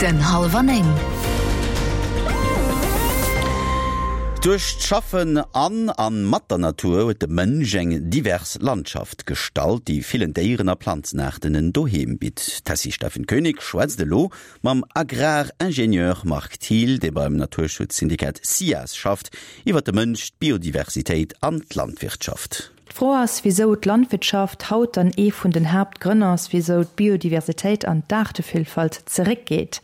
Den hallwer 9. Duerch d'Schaffen an a mat der Natur huet de Mënsch eng divers Landschaft gestalt, déi villen Déieren a Planzenaarten en Doheem bitt. D'Tessy Steffen Koenig schwätzt elo mam Agraringenieur Marc Thiel, dee beim Naturschutzsyndikat SIAS schafft, iwwer de Mënsch, d'Biodiversitéit an d'Landwirtschaft. D'Fro ass, wisou d'Landwirtschaft haut dann ee vun den Haaptgrënn ass, wisou d'Biodiversitéit an d'Aartevillfalt zeréckgeet.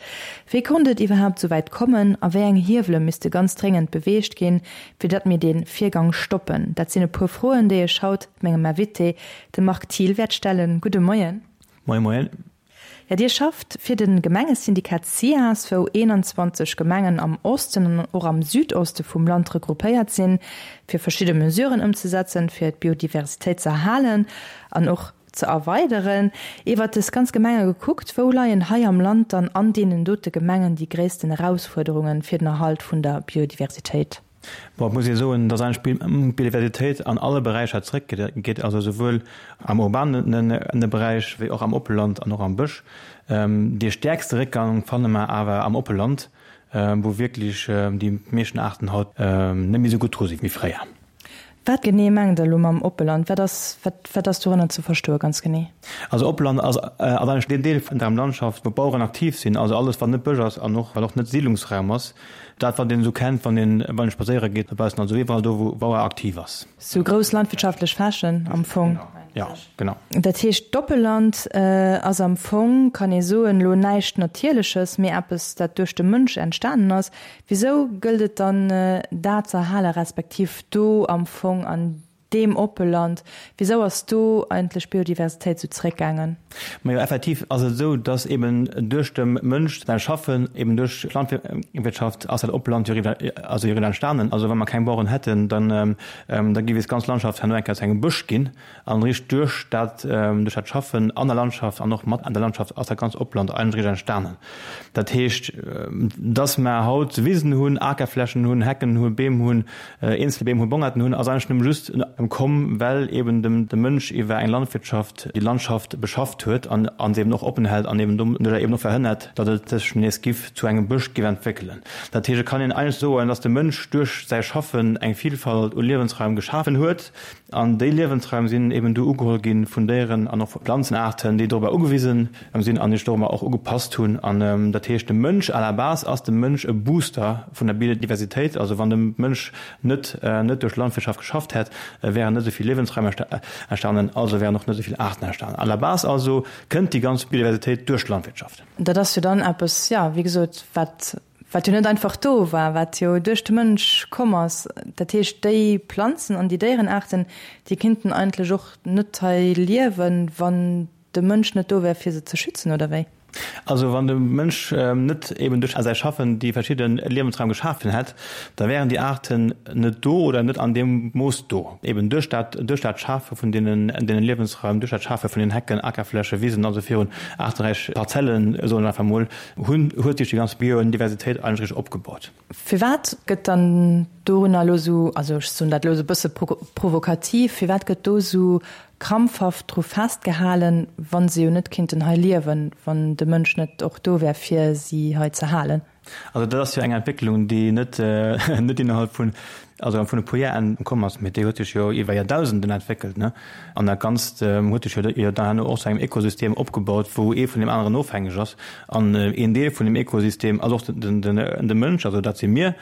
Wéi konnt et iwwerhaapt esou wäit kommen a wéi eng Hiewele misste ganz dréngend beweegt ginn, fir datt mir dee Virgang stoppen? Dat sinn e puer Froen, déi ech haut mengem Invité, dem Marc Thiel, wäert stellen. Gudde Moien. Moie Moien. Jo, Dir schafft fir de Gemengesyndikat SIAS, wou 21 Gemengen am Osten an och am Südoste vum Land regroupéiert sinn, fir verschidde Mesuren ëmzesetzen, fir d'Biodiversitéit ze erhalen an och ze erweideren. Iwwert dës ganz Gemenge gekuckt, wou leien hei am Land dann an deenen dote Gemengen déi gréissten Erausfuerderungen fir den Erhalt vun der Biodiversitéit? Bon, et muss ee soen, dass eigentlech d'Biodiversitéit an alle Beräicher zeréckgeet, also souwuel am urbane Beräich wéi och am Oppeland an och am Bësch. Dee stäerkste Réckgang fanne mer awer am Oppeland, wou wierklech déi meeschten Aarten haut net méi esou gutt dru si wéi fréier. Wat genee mengt Der elo mam Oppeland? Wat ass, wat, wat ass dorënner ze verstoe ganz genee? Also Oppeland ass, ass eigentlech deen Deel vun der Landschaft, wou d'Baueren aktiv sinn, also alles wat net Bësch ass an och wat och net Siidlungsraum ass, dat wat een esou kennt, wann een, wann een spadséiere geet dobaussen, also iwwerall do wou Bauer aktiv ass. Sou grouss landwirtschaftlech Flächen am Fong. Jo, genau. Dat heescht d'Oppeland ass am Fong, kann ee soen, elo näischt Natierleches, mee eppes dat duerch de Mënsch entstanen ass. Wisou gëllt et dann dat ze erhalen, respektiv do am Fong an deem Oppeland, wisou ass do eigentlech d'Biodiversitéit esou zeréckgaangen? Majo, effektiv ass et esou, dass eben duerch dem Mënsch säi Schaffen, eben duerch d'Landwirtschaft ass dat Oppeland jo eriwwer, also eriwwer entstanen. Also wa mer keng Baueren hätten, dann da géif eis ganz Landschaft herno eng Kéier zu engem Bësch ginn. An eréischt duerch dat, duerch dat Schaffen an der Landschaft an och mat an der Landschaft ass dat ganz Opland eigentlech eréischt entstanen. Dat heescht, dass mer haut Wisen hunn, Akerflächen hunn, Hecken hunn, Beem hunn, eenzel Beem hunn, Bongerten hunn, ass eigentlech nëmme just komm, well eben dem de Mënsch iwwer eng Landwirtschaft déi Landschaft beschafft huet an an se eben och oppen hält an eben doduerjer eben och verhënnert, datt et sech nees giff zu engem Bësch giff entwéckelen. Dat heescht, et kann een eigentlech soen, dass de Mënsch duerch säi Schaffen eng Vielfalt u Liewensraim geschafen huet, An déi Liewensraim sinn eben du ugeholl gi vun Déieren an och vu Planzenaarten, déi dorobber ugewisen sinn an sech dorobber och ugepasst hunn. An dat heescht, de Mënsch, à la base ass de Mënsch e Booster vun der Biodiversitéit. Also wann de Mënsch net net duerch Landwirtschaft geschafft hätt, wären net esou vill Liewensraim entstanen, also wären och net esou vill Aarten entstanen. À la base also kënnt déi ganz Biodiversitéit duerch d'Landwirtschaft. Dat ass jo dann eppes, jo, wéi gesot, wat Wat jo net einfach do war, wat jo duerch de Mënsch komm ass. Dat heescht, déi Planzen an déi Déierenaarten, déi kinnten eigentlech och net hei liewen, wann de Mënsch net do wär, fir se ze schützen, oder wéi? Also wann de Mënsch net eben duerch säi Schaffen déi verschidde Liewensraim geschafen hätt, da wären déi Aarten net do oder net an deem Mooss do. Eben duerch dat, duerch dat Schafe vun deenen, deenen Liewensraim, duerch dat Schafe vun den Hecken, Akerfläche, Wisen, also virun aarteräich Parzellen, soen ech einfach mol, Hunn, huet sech déi ganz Biodiversitéit eigentlech richteg opgebaut. Firwat gëtt dann dorunner elo esou, also ech soen dat elo esou e bësse provokativ, firwat gëtt do esou krampfhaft dru festgehalen, wa se jo net kinnten hei liewen, wann de Mënsch net och do wär, fir si hei ze halen? Also dat ass jo eng Entwécklung, déi net net innerhalb vun, also vun e puer Jar komm ass, mee déi huet sech jo iwwer Joerdausenden entwéckelt, ne? An dat Ganzt huet sech jo dann herno och zu engem Ökosystem opgebaut, wou ee vun deem aneren ofhängeg ass. An een Deel vun deem Ökosystem ass och de Mënsch, also dat si mir.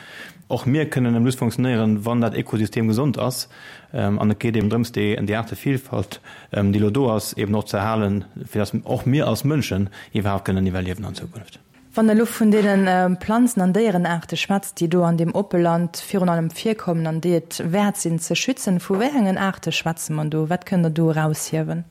Och mir kënnen nëmme just funktionéieren, wann dat Ökosystem gesond ass. An et geet eben drëms, déi Aartevielfalt, déi elo do ass, eben och ze erhalen, fir datt och mir als Mënschen iwwerhaapt kënnen iwwerliewen an Zukunft. Wann Der elo vun deene Planzen an Déierenaarte schwätzt, déi do an deem Oppeland virun allem virkommen an déi et wäert sinn ze schützen, vu wéi engen Aarte schwätze mer do? Wat kënnt Der do eraushiewen?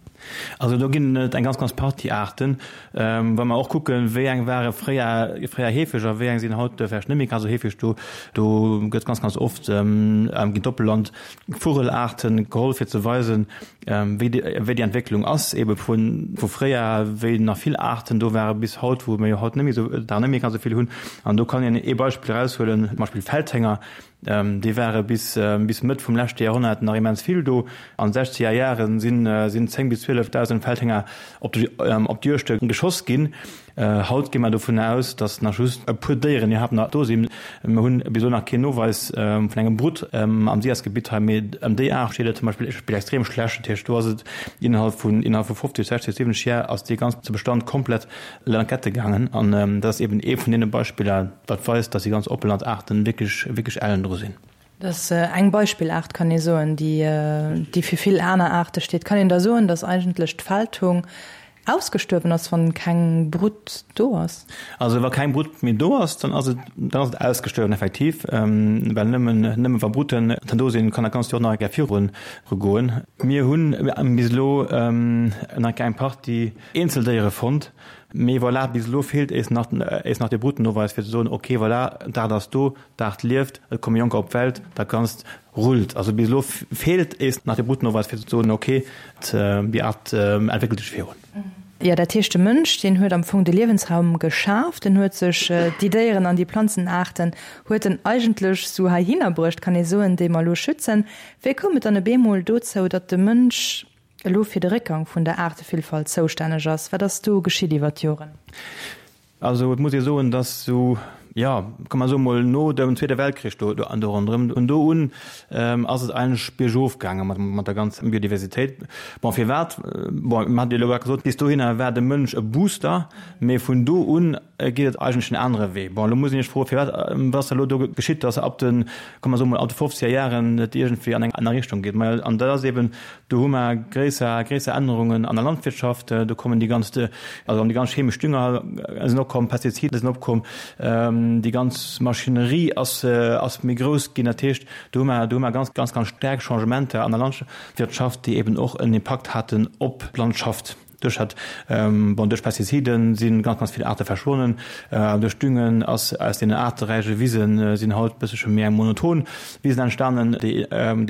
Also do ginn et eng ganz, ganz Partie Aarten. Wa mer och kucken, wéi eng ware fréier, fréier heefeg a wéi eng sinn haut vläicht net méi ganz esou heefeg do, do gëtt ganz, ganz oft ginn d'Oppeland Vugelaarten geholl, fir ze weisen, wéi déi Entwécklung ass, ebe vu fréier, wéi nach vill Aarten do ware bis haut, wou mir jo haut net méi esou, der net méi ganz esou vill hunn. An do kann een ee Beispill eraushuelen, zum Beispill Feldhénger, déi ware bis, bis Mëtt vum leschte Joerhonnert nach immens vill do. An de sechzeger Jahre sinn, sinn 10 bis 12.000 Feldhénger op de, op d'Juegte geschoss ginn. Haut gi mer dovun aus, datt nach just e puer Déieren iwwerhaapt nach do sinn. Mer hunn bis elo nach keen Noweis vun engem Brutt am SIAS-Gebitt hei, mee ëm déi Aart steet et zum Beispill extrem schlecht. Dat heescht, do ass et innerhalb vun innerhalb vu 50, 60, 70 Jar ass dee ganze Bestand komplett lankette gaangen. An dat ass eben ee vun deene Beispiller, wat weist, datt déi ganz Oppelandaarten wierklech, wierklech ellen dru sinn. Dat ass eng Beispillaart, kann ee soen, déi, déi fir vill aner Aarte steet. Kann een da soen, datt eigentlech d'Feldhung ausgestuerwen ass, wann keng Brutt do ass? Also wa keng Brutt méi do ass, dann ass et, dann ass et ausgestuerwen effektiv, well nëmmen, nëmme wa Brutten dann do sinn, kann dat Ganzt jo och nach eng Kéier virun goen. Mir hunn bis elo nach eng Partie Eenzeldéiere fonnt, mee voilà, bis elo feelt éis nach, éis nach de Bruttennoweis fir ze soen, okay voilà, d'Aart ass do, D'Aart lieft, et komme Jonker op d'Welt, dat Ganzt rullt. Also bis elo feelt ees nach de Brutnoweis fir ze soen, ok, déi Aart entwéckelt sech virun. Jo, dat heescht de Mënsch, deen huet am Fong de Liewensraum geschaf, den huet sech déi Déieren an déi Planzenaarten huet en eigentlech sou heihinner bruecht, kann ee soen, déi mer elo schützen. Wéi koum et dann e beemol dozou, datt de Mënsch elo fir de Réckgang vun der Aartevillfalt zoustänneg ass? Wat ass do geschitt iwwer d'Joren? Also et muss ee soen, datt esou, jo, komm mer soe mol no dem Zweete Weltkrich do an do ronderëm, vun do un ass et eigentlech biergof gaange mat der ganzer Biodiversitéit. Bon, firwat? Bon, mir haten jo elo grad gesot, bis dohinner war de Mënsch e Booster, mee vun do un geet et eigentlech en anere Wee. Bon, elo muss een sech froen, firwat, wat ass da elo do geschitt, datt ab de, komm mer soe mol, ab de fofzeger Jaren et iergendwéi an eng aner Richtung geet. Majo, an dat ass eeben Do hu mer gréisser, gréisser Ännerungen an der Landwirtschaft. Do kommen déi ganz, also déi ganz chemesch Dünger sinn opkomm, Pestizide sinn opkomm, déi ganz Maschinerie ass, ass méi grouss ginn. Dat heescht, do hu mer, do hu mer ganz, ganz, ganz staark Changementer an der Landwirtschaft, déi eben och en Impakt haten op d'Landschaft. Duerch dat, bon, duerch Pestizide si ganz, ganz vill Aarte verschwonnen. Duerch Düngen ass aus deenen aarteräiche Wise sinn haut bëssche méi eng monoton Wisen entstanen, déi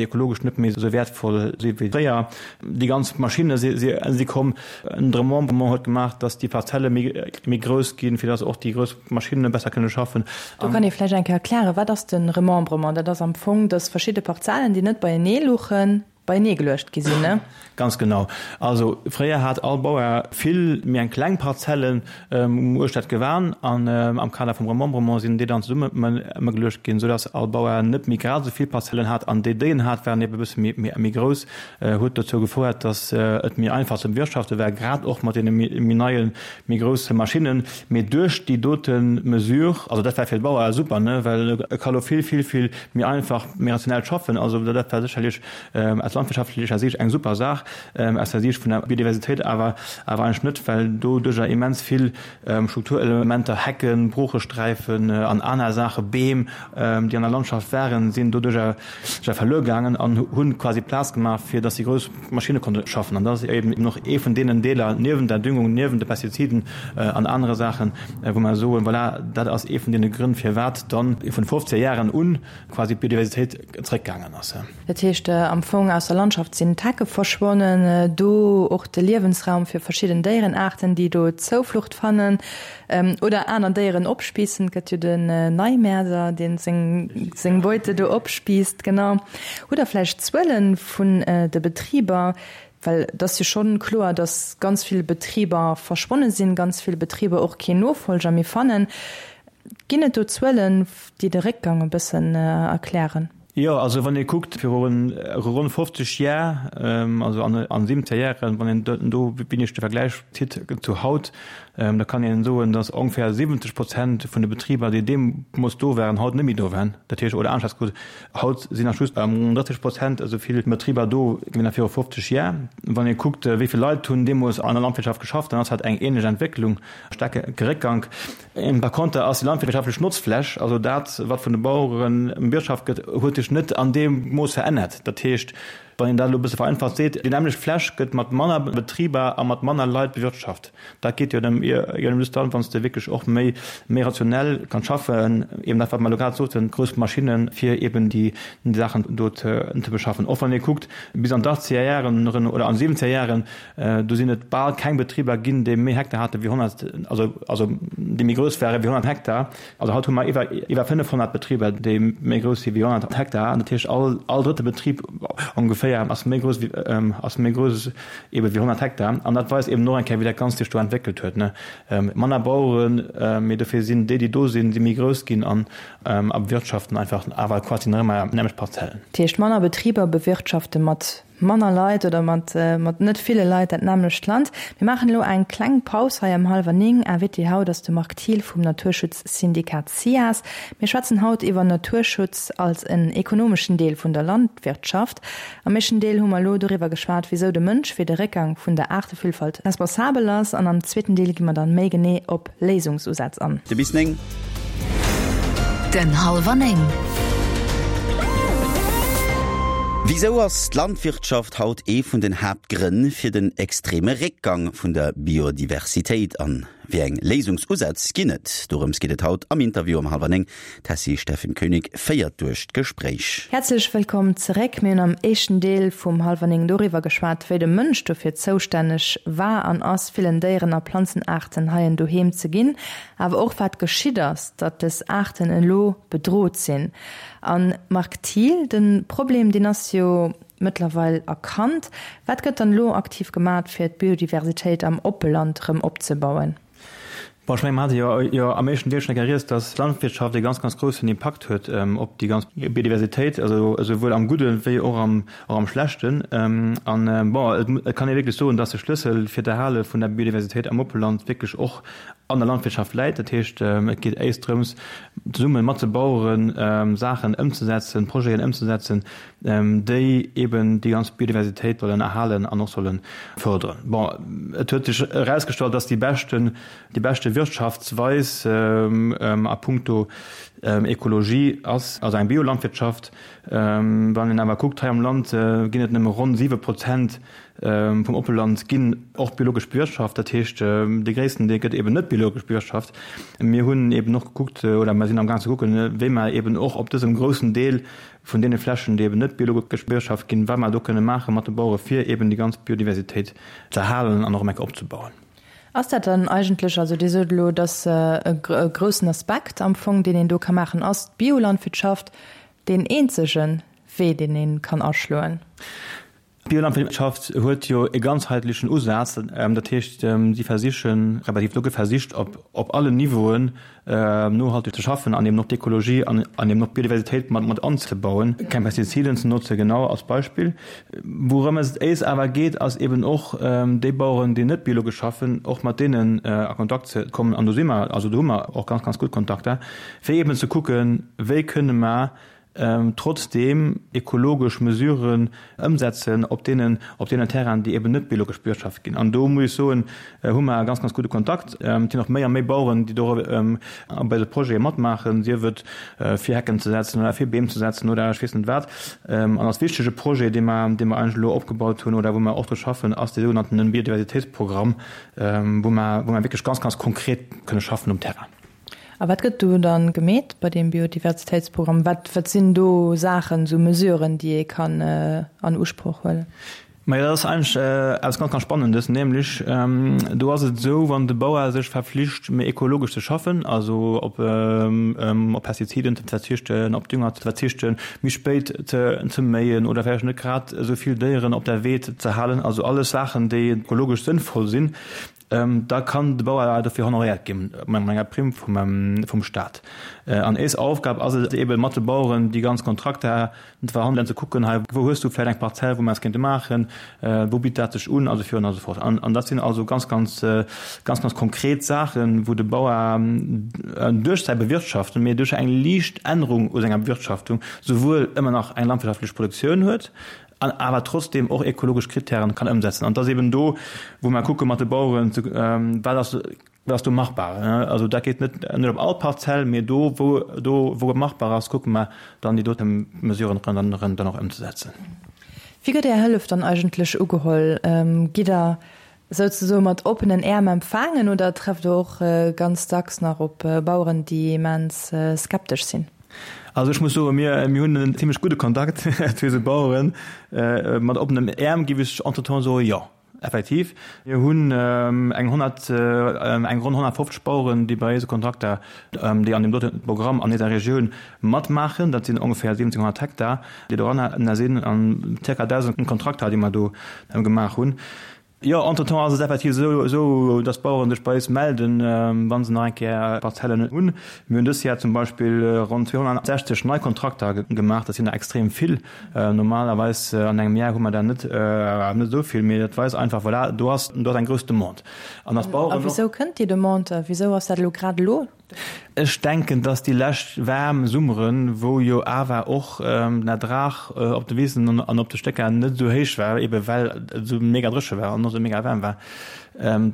ekologesch net méi esou wäertvoll si wéi fréier. Déi ganz Maschinne si komm. Den Remembrement huet gemaach, datt déi Parzelle méi grouss ginn, fir datt och déi grouss Maschinne besser kënne schaffen. Do kann ee vläicht eng Kéier erklären, Wat ass de Remembrement? Dat ass am Fong, datt verschidde Parzellen, déi net beienee luchen, beienee geluecht gi sinn, ne? Ganz genau. Also fréier hat all Bauer vill méi eng kleng Parzellen uechter d'Gewan an am Kader vum Remembrement sinn déi dann zesummegeluecht ginn, soudass all Bauer net méi grad esou vill Parzellen hat an déi, déi en hat, waren ebe bësse méi grouss, huet dozou gefouert, dass et méi einfach ze bewirtschafte war, grad och mat deene méi neien, méi grousse Maschinnen. Mee duerch déi dote Mesure, also dat war fir de Bauer super, ne, well e ka lo vill, vill, vill méi einfach, méi rationell schaffen. Also dat war sécherlech aus landwirtschaftlecher Siicht eng super Saach, aus der Siicht vun der Biodiversitéit awer awer eigentlech net, well doduercher immens vill Strukturelementer, Hecken, Broochesträifen an aner Saache, Beem, déi an der Landschaft waren, sinn doduercher verluer gaangen an hunn quasi Plaz gemaach, fir datt déi grouss Maschinne konnte schaffen. An dat ass eben och ee vun deenen Deeler, niewent der Düngung, niewent de Pestiziden an anere Saachen, wou mer soen, voilà, dat ass ee vun deene Grënn, firwat dann vun de fofzeger Jaren un quasi d'Biodiversitéit zréckgaangen ass. Dat heescht am Fong, aus der Landschaft sinn d'Hecke verschwonnen, do och de Liewensraum fir verschidden Déierenaarten, déi do Zouflucht fannen oder aner Déieren opspiissen. Et gëtt jo den Neimäerder, dee seng Beute do opspiisst. Genau. Hutt Der vläicht Zuele vun de Betriber? Well et ass jo schonn kloer, datt ganz vill Betriber verschwonne sinn, ganz vill Betriber och keen Nofolger méi fannen. Ginn et do Zuelen, déi de Réckgang e bëssen erklären? Jo, also wann ee kuckt, viru ronn 50 Jar, also an 70 Jaren, wann een do wéineg de Vergläich zitt zu haut, da kann een soen, datt ongeféier 70 Prozent vun de Betriber, déi deemools do waren, haut net méi do waren. Dat heescht, oder aneschters gesot, haut sinn nach just ronn 30 Prozent esou vill Betriber do wéi nach viru 50 Jar. Wann ee kuckt, wéi vill Leit hunn deemools an der Landwirtschaft geschafft, dann ass dat eng ähnlech Entwécklung, staarke Réckgank. Par conter ass déi landwirtschaftlech Notzfläch, also dat, wat vun de Bauere bewirtschaft gëtt, huet sech net an deem Mooss verännert. Dat heescht, wann een dat elo e bësse vereinfacht seet, déi nämmlecht Fläch gëtt mat manner Betriber a mat manner Leit bewirtschaft. Dat geet jo nëmme just dann, wann s de wierklech och méi méi rationell kanns schaffen, eben dat, wat mer elo grad soten, grouss Maschinnen, fir eben déi Saachen do ze beschaffen. Och wann ee kuckt, bis an d'Achtzeger Jaren oder an d'Siwwenzeger Jaren, Do sinn et bal keng Betriber ginn, déi méi Hektar hate wéi 100, also, also déi méi grouss ware wéi 100 Hektar. Also haut hu mer iwwer, iwwer 500 Betriber, déi méi grouss si wéi 100 Hektar. Dat heescht, all, all drëtte Betrib ongeféier. Kéier ass méi grouss wéi, ass méi grouss ebe wéi 100 Hektar. An dat weist eben och eng Kéier, wéi dat Ganzt sech do entwéckelt huet, ne. Manner Baueren, mee dofir sinn déi, déi do sinn, si méi grouss ginn an a bewirtschaften einfach awer quasi nach ëmmer nämmlecht Parzellen. Dat heescht, manner Betriber bewirtschafte mat manner Leit oder mat mat net ville Leit dat nämmlecht Land. Mir maachen elo eng kleng Paus hei ëm hallwer 9. Invité haut ass de Marc Thiel vum Naturschutzsyndikat SIAS. Mir schwätzen haut iwwer Naturschutz als en ekonomeschen Deel vun der Landwirtschaft. Am éischten Deel hu mer elo doriwwer geschwat, wisou de Mënsch fir de Réckgang vun der Aartevillfalt responsabel ass an am zweeten Deel gi mer dann méi genee op Léisungsusätz an. De bis 9. Den Hallwer 9. Wisou ass d'Landwirtschaft haut ee vun den Haaptgrënn fir den extreme Réckgang vun der Biodiversitéit? An wéi eng Léisungsusätz ginn et? Dorëms geet et haut am Interview um hallwer 9. D'Tessy Steffen Koenig féiert duerch d'Gespréich. Häerzlech wëllkomm zeréck. Mir hunn am éischten Deel vum Hallwer 9 doriwwer geschwat, wéi de Mënsch dofir zoustänneg war an ass, villen Déieren a Planzenaarten hei en Doheem ze ginn, awer och wat geschitt ass, datt dës Aarten elo bedrot sinn. A Marc Thiel, de Problem, deen ass jo mëttlerweil erkannt. Wat gëtt dann elo aktiv gemat, fir d'Biodiversitéit am Oppeland erëm opzebauen? Bon, ech mengen, mer hate jo jo am éischten Deel schonn eng Kéier rieds, dass d'Landwirtschaft e ganz, ganz groussen Impakt huet op déi ganz Biodiversitéit, also esouwuel am Gudde wéi och am, och am Schlechten. An, bon, et et kann ee wierklech soen, dass de Schlëssel fir d'Erhale vun der Biodiversitéit am Oppeland wierklech och an der Landwirtschaft läit. Dat heescht, et geet éischt drëms, zesumme mat de Baueren Saachen ëmzesetzen, Projeten ëmzesetzen, déi eben déi ganz Biodiversitéit sollen erhalen an och solle fërderen. Bon, et huet sech erausgestallt, dass déi beschten, déi beschte Wirtschaftsweis a puncto Ekologie ass also eng Biolandwirtschaft. Wann een awer kuckt, hei am Land ginn et nëmme ronn 7 Prozent vum Oppeland ginn och biologesch bewirtschaft. Dat heescht, dee gréissten Deel gëtt eben net biologesch bewirtschaft. Mir hunn eben och gekuckt oder mer sinn amgaang ze kucken, wéi mer eben och op dësem groussen Deel vun deene Flächen, déi eben net biologesch bewirtschaft ginn, wat mer do kënne maache mat de Bauere fir eben déi ganz Biodiversitéit ze erhalen an och erëm eng Kéier opzebauen. Ass dat dann eigentlech, also Dir sot elo, dass e groussen Aspekt am Fong, deen een do ka maachen, ass d'Biolandwirtschaft deen eenzege Wee, deen ee kann aschloen? D'Biolandwirtschaft huet jo e ganzheitlechen Usaz, dat heescht, si versichen, respektiv do gëtt versicht, op allen Niveauen nohalteg ze schaffen an eben och d'Ekologie an eben och d'Biodiversitéit mat anzebauen, keng Pestiziden ze notzen, genau als Beispill. Wourëm et éis awer geet, ass eben och déi Baueren, déi net biologesch schaffen, och mat deenen a Kontakt ze kommen, an do si mer, also do hu mer och ganz, ganz gutt Kontakter, fir eben ze kucken, wéi kënne mer trotzdeem ekologesch Mesuren ëmsetzen op deenen, op deenen Terrainen, déi eben net biologesch bewirtschaft ginn. An do muss ech soen, hu mer e ganz, ganz gudde Kontakt. Et sinn och méi a méi Baueren, déi do bei de Projete matmaachen, sief et fir Hecken ze setzen oder fir Beem ze setzen oder ech weess net wat. An als wichtege Projet, dee mer, dee mer eigentlech elo opgebaut hunn oder wou mer och dru schaffen, ass dee sougenannten Biodiversitéitsprogramm, wou mer, wou mer wierklech ganz, ganz konkret kënne schaffen um Terrain. A wat gëtt do dann gemeet bei deem Biodiversitéitsprogramm? Wat, wat sinn do Saachen, esou Mesuren, déi ee kann an Usproch huelen? Majo, dat ass eigentlech eppes ganz, ganz Spannendes. Nämlech, do ass et esou, wann de Bauer sech verflicht, méi ekologesch ze schaffen, also op op Pestiziden ze verzichten, op Dünger ze verzichten, méi spéit ze ze méien oder vläicht net grad esou vill Déieren op der Weed ze halen, also alles Saachen, déi ekologesch sënnvoll sinn, Da kann de Bauer dofir honoréiert gi mat enger Primm vum Staat. An éis Aufgab ass et eeben, mat de Baueren déi ganz Kontrakter ze verhandelen, ze kucken, hei wou hues du vläicht eng Parzell, wou mer eppes kéinte maachen, wou bitt dat sech un, a sou virun a sou fort. An dat sinn also ganz, ganz, ganz, ganz konkret Saachen, wou de Bauer duerch säi Bewirtschaften, mee duerch eng liicht Ännerung u senger Bewirtschaftung souwuel ëmmer nach eng landwirtschaftlech Produktioun huet, an awer trotzdem och ekologesch Kritären kann ëmsetzen. An et ass eben do, wou mer kucke mat de Baueren, wat ass, wat ass do machbar. Also dat geet net, net op all Parzell, mee do, wou, do, wou et machbar ass, kucke mer dann déi dote Mesuren dann, dann och ëmzesetzen. Wéi gëtt Är Hëllef dann eigentlech ugeholl? Gitt Der souzesoe mat oppenen Äerm empfaangen oder trefft Der och ganz dacks nach op Baueren, déi immens skeptesch sinn? Also ech muss soen, mir, mir hunn en zimmlech gudde Kontakt zu eise Baueren. Mat oppenem Äerm géif ech entretemps soen, jo. Effektiv. Mir hunn eng 100, eng ronn 150 Baueren, déi bei eise Kontrakter, déi an deem dote Programm an eiser Regioun matmaachen. Dat sinn ongeféier 1.700 Hektar, déi doranner sinn, an zirka 1.000 Kontrakter, déi mer do gemaach hunn. Jo, entretemps ass et effektiv esou, dass d'Baueren sech bei eis melden, wa se nach eng Kéier Parzellen hunn. Mir hunn dës Jar zum Beispill ronn 260 nei Kontrakter gemaach. Dat sinn der extrem vill. Normalerweis an engem Jar hu mer der net esou vill, mee dat weist einfach, voilà, do ass eng grouss Demande. An dass d'Baueren och. A wisou kënnt déi Demande? Wisou ass dat elo grad elo? Ech denken, dass déi lescht waarm Summeren, wou jo awer och den Ertrag op de Wisen an op de Stécker net esou héich war, ebe well et esou mega dréche war an och esou mega waarm war,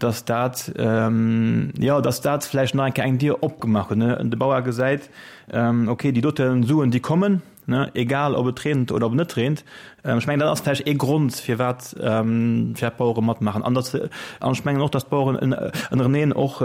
dass dat, jo, dass dat vläicht nach eng Kéier eng Dier opgemaach huet. De Bauer gesäit, okay, déi dote Suen, déi kommen, Ne, egal ob et reent oder ob et net reent. Ech mengen, dat ass vläicht ee Grond, firwat firwat d'Bauere matmaachen. An datt, an ech mengen och, datt d'Baueren ënnereneen och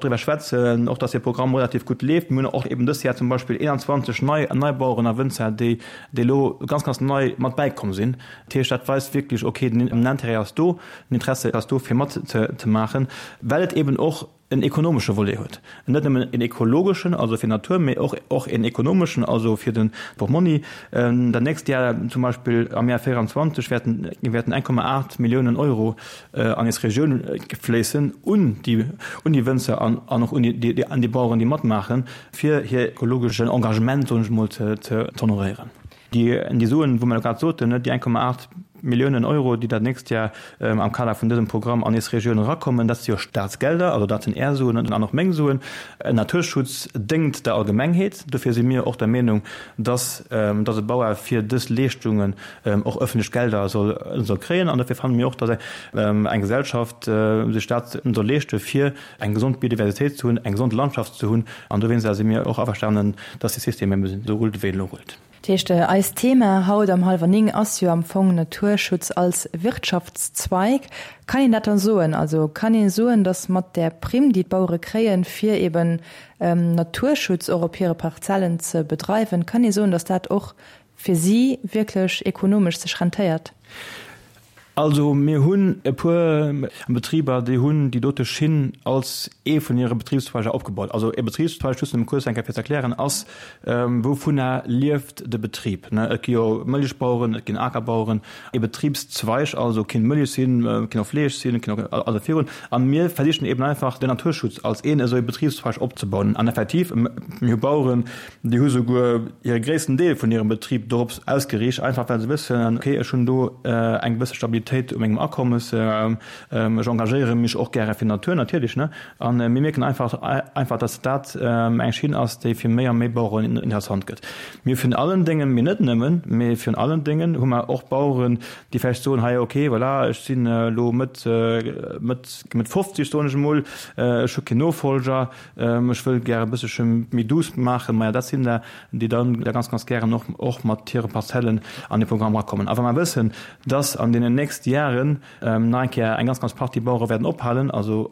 driwwer schwätzen, och datt dee Programm relativ gutt leeft. Mir hunn och eben dëst Jar zum Beispill 21 nei nei Baueren a Wënzer, déi déi elo ganz, ganz nei mat bäikomm sinn. Dat heescht, dat weist wierklech, okay, den Intérêt ass do, den Interesse ass do, fir matzemaachen, well et eben och en ekonomesche Volet huet, net nëmmen en ekologeschen, also fir d'Natur, mee och och en ekonomeschen, also fir de Portmonni. Dat nächst Jar zum Beispill am Jar 24 wäerten wäerten 1,8 Milliounen Euro an eis Regioun fléissen un déi un déi Wënzer an an och un déi an déi Baueren, déi matmaachen, fir hir ekologeschen Engagement, soen ech emol, ze ze honoréieren. Déi Suen, wou mer elo grad soten, déi 1,8 Milliounen Euro, déi dat nächst Jar am Kader vun dësem Programm an eis Regioun erakommen, dat si jo Staatsgelder, also dat sinn Är Suen an och meng Suen. Naturschutz déngt der Allgemengheet. Dofir si mir och der Meenung, dass e Bauer fir dës Leeschtungen och öffentlech Gelder soll kréien. An dofir fanne mir och, dass eng Gesellschaft sech dat soll leeschte fir eng gesond Biodiversitéit ze hunn, eng gesond Landschaft ze hunn. An dowéinster si mir och averstanen, dass de System eben esou rullt, wéi en elo rullt. Dat heescht, eist Thema haut am Hallwer 9 ass jo am Fong Naturschutz als Wirtschaftszweig. Kann een dat dann soen? Also kann ee soen, datt mat där Primm, déi d'Bauere kréien, fir eben Naturschutz och op hire Parzellen ze bedreiwen, kann ee soen, datt dat och fir si wierklech ekonomesch sech rentéiert? Also mir hunn e puer Betriber, déi hunn déi dote Schinn als ee vun hire Betribszweiger opgebaut. Also e Betribszweig, just nëmme kuerz eng Kéier fir ze erklären, ass, wouvunner lieft de Betrib. Et gi jo Mëllechbaueren, et ginn Akerbaueren. E Betribszweig also kinnt Mëllech sinn, kinnt och Fleesch sinn, kinnt och also virun. A mir versichen eben einfach den Naturschutz als een esou e Betribszweig opzebauen. An effektiv, mir hu Baueren, Déi hu souguer hire gréissten Deel vun hirem Betrib dorops ausgeriicht, einfach well se wëssen, okay, ech hunn do eng gewësse Stabilitéit u mengem Akommes, ech engagéiere mech och gäre fir d'Natur natierlech, ne. A mir mierken einfach, einfach, dass dat eng Schinn ass, déi fir méi a méi Baueren interessant gëtt. Mir virun allen Déngen, mee net nëmmen, mee virun allen Déngen hu mer och Baueren, déi vläicht soen, hei, okay, voilà, ech sinn elo Mëtt, Mëtt, Mëtt 50, soen ech emol, ech hu keen Nofolger, Ech wëll gär e bëssche méi douce maachen. Maja, dat sinn der, déi dann da ganz, ganz gären och, och mat hire Parzellen an dee Programm erakommen. A wa mer wëssen, dass an deenen nächste Jaren nach eng Kéier eng ganz, ganz Partie Bauere wäerten ophalen, also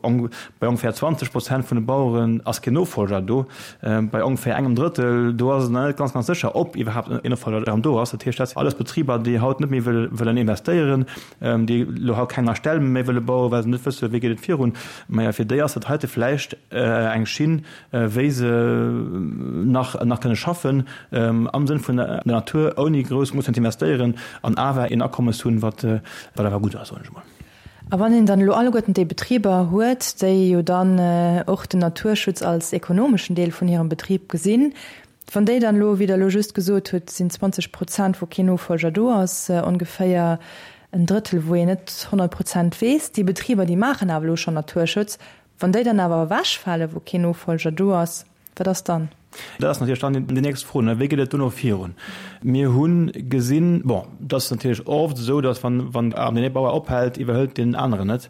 bei ongeféier 20 Prozent vun de Baueren ass keen Nofolger do, bei ongeféier engem Drëttel, do ass et nach net ganz, ganz sécher, ob iwwerhaapt en Nofolger erëm do ass. Dat heescht, dat sinn alles Betriber, déi haut net méi wëllen investéieren, déi elo haut keng nei Ställ méi wëlle bauen, well se net wësse wéi geet et virun. Maja, fir déi ass dat heite vläicht eng Schinn, wéi se nach nach kënne schaffen am Sënn vun der Natur, ouni grouss mussen ze investéieren an awer een Akommes hunn, wat wat awer gutt ass, soen ech emol. A wann een dann elo alleguerten déi Betriber huet, déi jo dann och den Naturschutz als ekonomeschen Deel vun hirem Betrib gesinn, Wann déi dann elo, wéi Der elo just gesot hutt, sinn 20 Prozent, wou keen Nofolger do ass, ongeféier en Drëttel, wou een net 100 Prozent weess, déi Betriber, déi maachen awer elo schonn Naturschutz, wann déi dann awer ewechfalen, wou keen Nofolger do ass, wat ass dann? Dat ass natierlech dann déi nächst Fro, wéi geet et dono virun? Mir hu gesinn, bon, et ass natierlech oft esou, datt wann deen ee Bauer ophält, iwwerhëlt deen aneren et.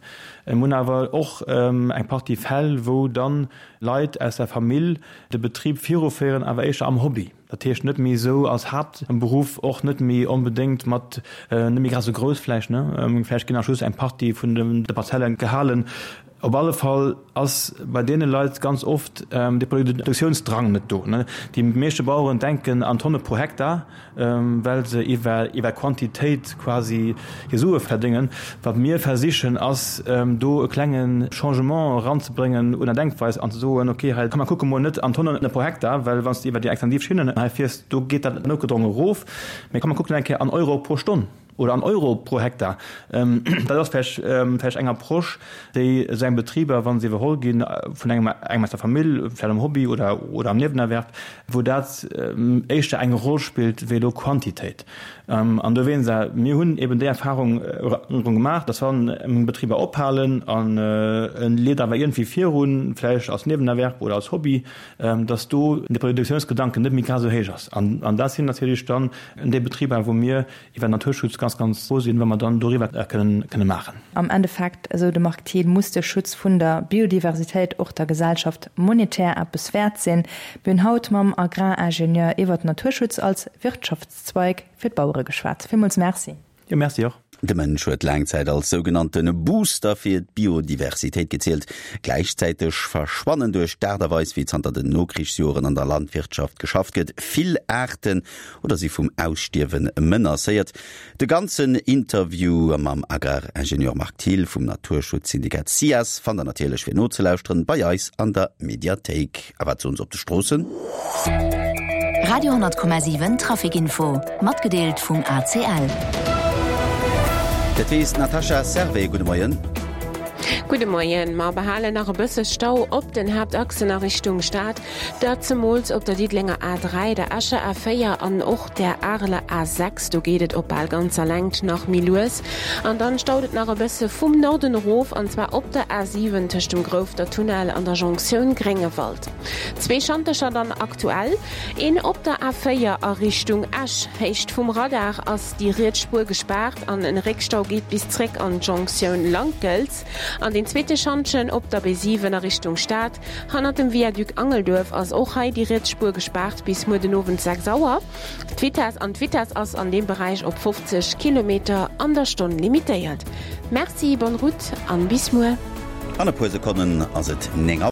Mir hunn awer och eng Partie Fäll, wou dann Leit aus der Famill de Betrib viruféieren, awer éischter am Hobby. Dat heescht net méi esou als Haaptberuff, och net méi onbedéngt mat, net méi grad esou grouss vläicht, ne? Vläicht ginn nach just eng Partie vun de Parzelle gehalen. Op alle Fall ass bei deene Leit ganz oft de Produktiounsdrang net do. Déi meeschte Baueren denken an Tonne pro Hektar, well se iwwer Quantitéit quasi hir Sue verdéngen. Wat mir versichen, ass do e klenge Changement eranzebréngen un der Denkweis an ze soen, okay, hei komm mer kucke mol net an Tonnen pro Hektar, well wann s de iwwer déi extensiv Schinnen hei fiers, do geet dat noutgedrongen erof, mee komm mer kucken eng Kéier an Euro pro Stonn. Oder an Euro pro Hektar. Dat ass vläicht vläicht eng Approche, déi esou eng Betriber, wa se iwwerholl gi vun engem engem aus der Famill, vläicht am Hobby oder oder am Niewenerwerb, wou dat éischter eng Roll spillt wéi elo Quantitéit. An dowéinst, mir hunn eben déi Erfahrung gemaach, dass wann Betriber ophalen an e leet awer iergendwéi virun, vläicht als Niewenerwerb oder als Hobby, dass do de Produktiounsgedanken net méi grad esou héich ass. An dat sinn natierlech dann déi Betriber, wou mir iwwer Naturschutz ganz, ganz frou sinn, wa mer dann doriwwer kënnen, kënne maachen. Am Endeffekt, esou de Marc Thiel, muss de Schutz vun der Biodiversitéit och der Gesellschaft monetär eppes wäert sinn. Mir hunn haut mam Agraringenieur iwwert Naturschutz als Wirtschaftszweig fir d'Bauere geschwat. Villmools Merci. Jo, Merci och. De Mënsch huet laang Zäit als sougenannte Booster fir d'Biodiversitéit gezielt. Gläichzäiteg verschwannen duerch d'Aart a Weis, wéi zanter den Nokrichsjoren an der Landwirtschaft geschafft gëtt, vill Aarten oder si vum Ausstierwe menacéiert. De ganzen Interview mam Agraringenieur Marc Thill vum Naturschutzsyndikat SIAS fannt der natierlech fir nozelauschteren bei eis an der Mediathéik. A wat soen se op de Stroossen? Radio 10,7 Traficinfo, matgedeelt vum ACL. Dat weess d'Natasha Servais. Gudde Moien. Gudde Moien. Mer behalen nach e bësse Stau op den Haaptachsen a Richtung Stad. Dat zemools op der Diddelenger A3, der Escher A4 an och der Areler A6. Do geet et op bal ganzer Längt nach méi lues. An dann staut et nach e bësse vum Norden erof, an zwar op der A7 tëscht dem Grouffter Tunnel an der Jonktioun Gréngewald. Zwee Schantercher dann aktuell, een op der A4 a Richtung Esch. Héicht vum Radar ass déi riets Spuer gespaart an en Réckstau geet bis zréck an d'Jonktioun Lankelz. An deen zweete Schantjen op der B7 a Richtung Stad. Hannert dem Viaduc Angelduerf ass och hei déi riets Spuer gespaart bis muer den Owend 6 Auer. D'Vitess an d'Vitess ass an deem Beräich op 50 Kilometer an der Stonn limitéiert. Merci, bonne route an bis muer. An e puer Sekonnen ass et 9 Auer.